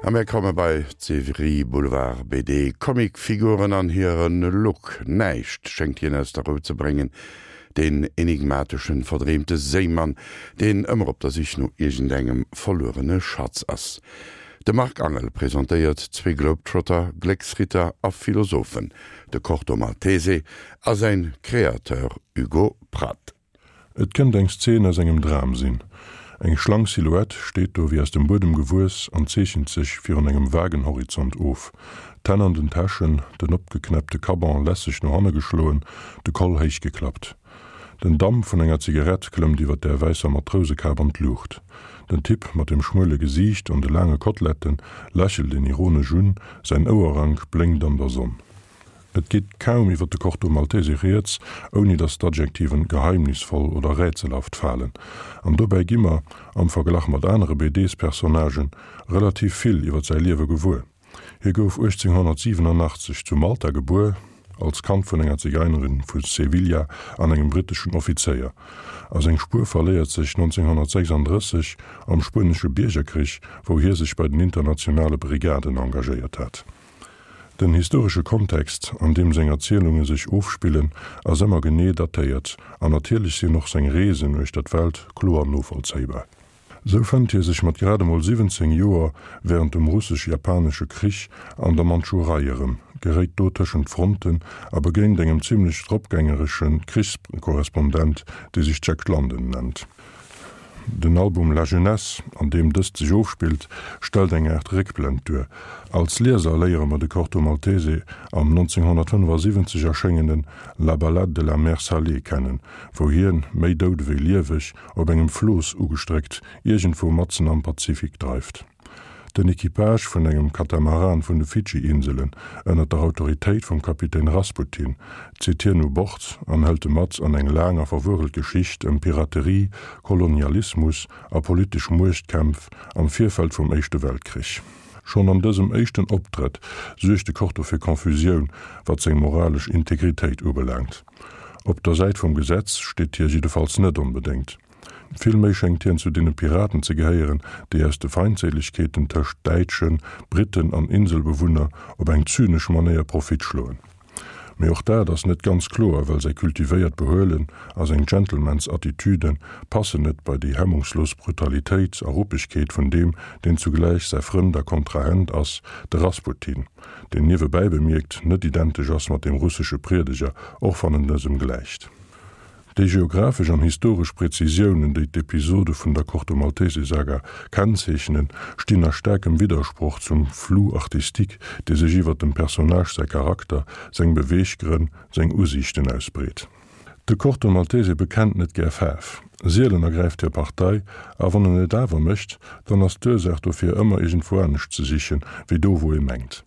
A mir komme bei d'Serie Boulevard BD. Comicfiguren an hire Look, näischt schéngt hien aus der Rou ze bréngen, deen enigmateschen, verdreemte Séimann, deen ëmmer op der Sich no iergendengem verluerene Schatz ass. De Marc Angel presentéiert zwee Globetrotter, Glécksritter a Philosophen, de Corto Maltese a säin Créateur Hugo Pratt. Et kënnt eng Szen aus engem Dram sinn. Eng schlank Silhouette steet do wéi aus dem Buedem gewuess an zeechent sech virun engem vagen Horizont of. D'Hänn an den Täschen, den opgeknäppte Caban lässeg no hanne geschloen, de Koll héich geklappt. Den Damp vun enger Zigarett klëmmt iwwer där wäisser Matrousekap an d'Luucht. Den Typ mat dem schmuele Gesiicht an de laange Koteletten lächelt een ironesch un, säin Ouerrank blénkt an der Sonn. Et geet kaum iwwer de Corto Maltese rieds, ouni datt d'Adjektiven geheimnisvoll oder rätselhaft falen. An dobäi gi mer, am Verglach mat anere BDs-Personnagen, relativ vill iwwer säi Liewe gewuer. Hie gouf 1887 zu Malta gebuer, als Kand vun enger Zigeinerin vu Sevilla an engem britteschen Offizéier. A seng Spuer verléiert sech 1936 am Spuenesche Biergerkrich, wou hie sech bei den Internationale Brigaden engagéiert hat. Den historesche Kontext, an deem seng Erzielunge sech ofspillen, ass ëmmer genee datéiert an natierlech sinn och seng Reesen uechter d'Welt kloer novollzéibar. Sou fënnt hie sech mat grad emol 17 Joer wärend dem Russesch-Japanesche Krich an der Mandschurei erëm, geréit do tëschent d'Fronten a begéint engem zimmlech dropgängeresche Krichskorrespondent, dee sech Jack London nennt. Den Album La Jeunesse, an deem dëst sech ofspillt, stellt eng Aart Réckblend duer. Als Lieser léiere mer de Corto Maltese am 1975 erschéngenen La Ballade de la mer salée kennen, wou hien, méi dout ewéi lieweg, op engem Flooss ugestréckt, iergendwou matzen am Pazifik dreift. Den Equipage vun engem Katamaran vun de Fidschi-Inselen, ënner der Autoritéit vum Kapitän Rasputin, zitt hien u Bord an hëlt e mat an eng laang a verwuerelt Geschicht ëm Piraterie, Kolonialismus a politesch Muechtkämpf am Virfeld vum Éischte Weltkrich. Schonn an dësem éischten Optrëtt suergt de Corto fir Confusioun, wat seng moralesch Integritéit ubelaangt. Op der Säit vum Gesetz steet hie jiddefalls net onbedéngt. Villméi schéngt hien zu deene Piraten ze gehéieren, déi aus de Feindséilegkeeten tëscht Däitschen, Britten an Inselbewunner op eng zynesch Manéier Profit schloen. Mee och dat ass net ganz kloer, well säi kultivéiert Behuelen a seng Gentleman's-Attitüde passen net bei déi hemmungslos Brutalitéit a Ruppegkeet vun deem, deen zugläich säi Frënd a Kontrahent ass, de Rasputin, deen niewebäi bemierkt net identesch ass mat deem russesche Priedeger, och wann en dësem gläicht. Déi geographesch an historesch Prezisiounen, déi d'Episode vun der Corto Maltese Saga kennzeechnen, stinn a staarkem Widdersproch zum Flou artistique, dee sech iwwer dem Personnage säi Charakter, seng Beweeggrënn, seng Usiichten ausbreet. De Corto Maltese bekennt net gär Faarf. Sielen ergräift hie Partei, a wann en et awer mécht, dann ass d'Ursaach dofir ëmmer iergendwou anescht ze sichen, wéi do wou ee mengt.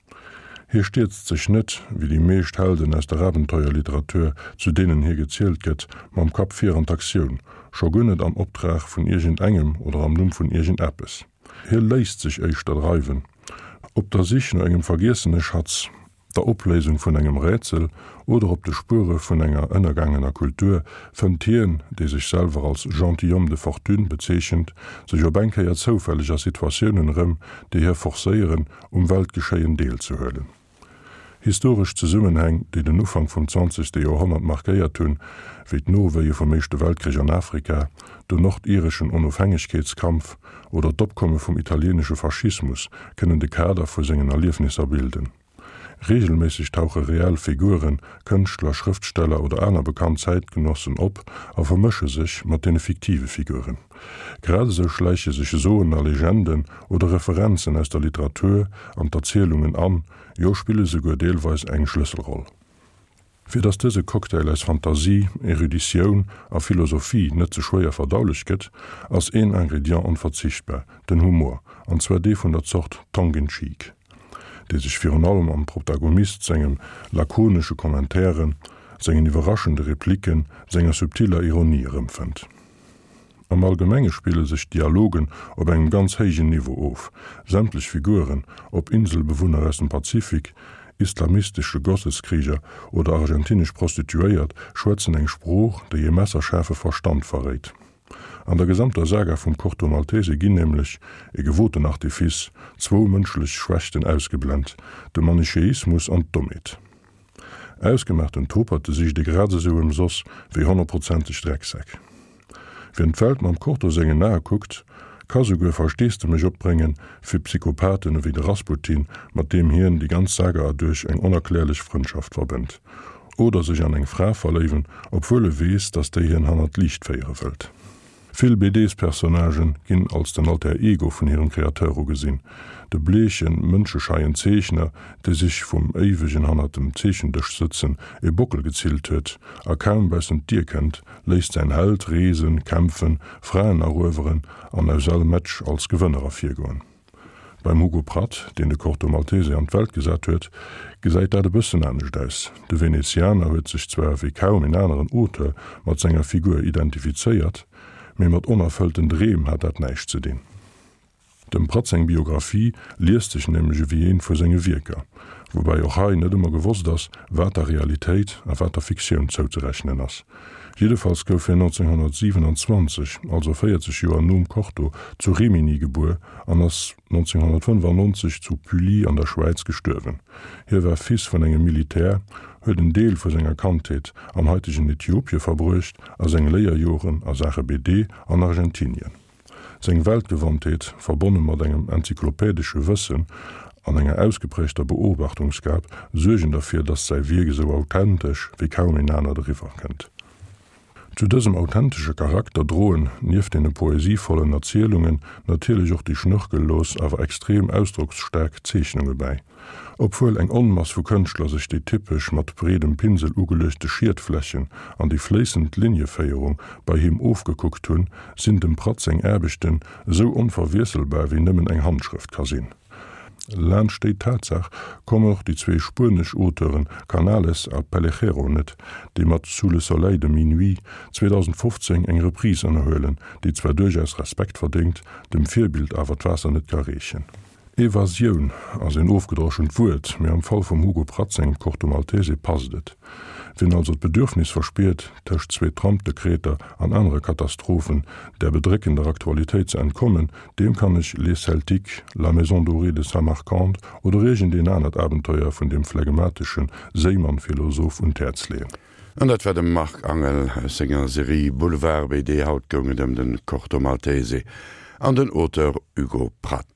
Hie stierzt sech net, wéi déi meescht Helden aus der Abenteuerliteratur, zu deenen hie gezielt gëtt, mam Kapp vir an d'Aktioun, scho guer net am Optrag vun iergend engem oder am Numm vun iergend eppes. Hie léisst sech éischter dreiwen, op der Sich no engem vergiessene Schatz, der Opléisung vun engem Rätsel oder op de Spuere vun enger ënnergaangener Kultur, fënnt hien, dee sech selwer als gentilhomme de fortune bezeechent, sech op eng Kéier zoufälleg a Situatiounen erëm, déi hie forcéieren, um Weltgeschéien deelzehuelen. Historesch Zesummenhäng, déi den Ufank vum zwanzegste Joerhonnert markéiert hunn, wéi d'Nowéie vum Éischte Weltkrich an Afrika, den nordireschen Onofhängegkeetskampf oder d'Opkomme vum italieenesche Faschismus, kënnen de Kader vu sengen Erliefnisser bilden. Reegelméisseg tauche reell Figuren, Kënschtler, Schrëftsteller oder aner bekannt Zäitgenossen op a vermësche sech mat deene fiktive Figuren. Grad esou schläiche sech Soen a Legenden oder Referenzen aus der Literatur an d'Erzielungen an, jo spille souguer deelweis eng Schlësselroll. Fir datt dëse Cocktail aus Fantasie, Eruditioun a Philosophie net ze schwéier verdaulech gëtt, ass een Ingredient onverzichtbar, den Humor, an zwar dee vun der Zort tongue in cheek, dee sech virun allem am Protagonist sengem lakonesche Commentairen, sengen iwwerraschende Replicken, senger subtiller Ironie erëmfënnt. Am Allgemenge spille sech d'Dialogen op engem ganz héijen Niveau of. Sämtlech Figuren, ob Inselbewunner aus dem Pazifik, islamistesche Gotteskrieger oder argentinesch Prostituéiert, schwätzen eng Sprooch, déi e messerschaarfe Verstand verréit. An der gesamter Saga vum Corto Maltese ginn nämlech, e gewoten Artifice, zwou mënschlech Schwächten ausgeblent, de Manicheismus an d'Dommheet. Ausgemaachten Toperte sicht ee grad esou ëmsoss wéi honnertprozenteg Drecksäck. Wien d'Welt mam Corto sengen Ae kuckt, ka souguer Versteesdemech opbrénge fir Psychopathen ewéi de Rasputin, mat deem hien déi ganz Saga erduerch eng onerklärlech Frëndschaft verbënnt. Oder sech an eng Fra verléiwen, obwuel e weess, datt déi hien hannert d'Liicht féiere wëllt. Vill BDs-Personnagen ginn als den Alter Ego vun hirem Kreateur ugesinn, de bleechen, mënschescheien Zeechner, dee sech vum éiwegen hannert dem Zeechendësch sëtzen e Bockel gezillt huet a kaum baussent d'Dier kënnt, léisst säin Held reesen, kämpfen, Fraen erueweren an aus all Match als Gewënner ervirgoen. Beim Hugo Pratt, deen de Corto Maltese an d'Welt gesat huet, gesäit dat e bëssen anescht aus. De Venezianer huet sech zwar wéi kaum en aneren Auteur mat senger Figur identifizéiert, mee mat onerfëllten Dreem hat dat näischt ze dinn. Dem Pratt seng Biographie liest sech nämlech ewéi eent vu senge Wierker, woubäi och hei net ëmmer gewosst ass, wat der Realitéit a wat der Fiktioun zouzerechnen ass. Jiddefalls gouf hien 1927, also 40 Joer nom Corto, zu Rimini gebuer an ass 1995 zu Pully an der Schwäiz gestuerwen. Hie war Fils vun engem Militär, huet en Deel vu senger Kandheet am haitegen Ethiopie verbruecht a seng Léierjoren a Saache BD an Argentinien. Seng Weltgewandtheet, verbonne mat engem enzyklopädesche Wëssen an enger ausgeprägter Beobachtungsgab, suergen derfir, datt säi Wierk esou authentesch wéi kaum een anert eriwwer kënnt. Zu dësem authentesche Charakter droen, nieft deene poesievollen Erzielungen, natierlech och déi schnörkellos, awer extrem ausdrocksstaark Zeechnunge bäi. Obwuel eng Onmass vu Kënschtler sech déi typesch mat breedem Pinsel ugeluechte Schietflächen an déi fléissend Linieféierung bei him ofgekuckt hunn, sinn dem Pratt seng Aarbechten esou onverwiesselbar wéi nëmmen eng Handschrëft ka sinn. Laanscht déi Tatsaach kommen och déi zwee spuenesch Auteuren Canales a Pellejero net, déi mat Sous le soleil de minuit 2015 eng Reprise ënnerhuelen, déi zwar duerchaus Respekt verdéngt, dem Virbild awer d'Waasser net ka reechen. Evasioun ass een ofgedroschent Wuert, mee am Fall vum Hugo Pratt sengem Corto Maltese passt et. Wien also d'Bedürfnis verspiert, tëscht zwee Trump-Dekreter an anere Katastrophen der bedréckender Aktualitéit ze entkommen, deem kann ech Les Celtiques, La Maison dorée de Samarcande oder iergendeen anert Abenteuer vun deem phlegmatesche Séimann-Philosoph un d'Häerz leeën. An dat war de Marc Angel aus senger Serie Boulevard BD. Haut goung et ëm de Corto Maltese an den Auteur Hugo Pratt.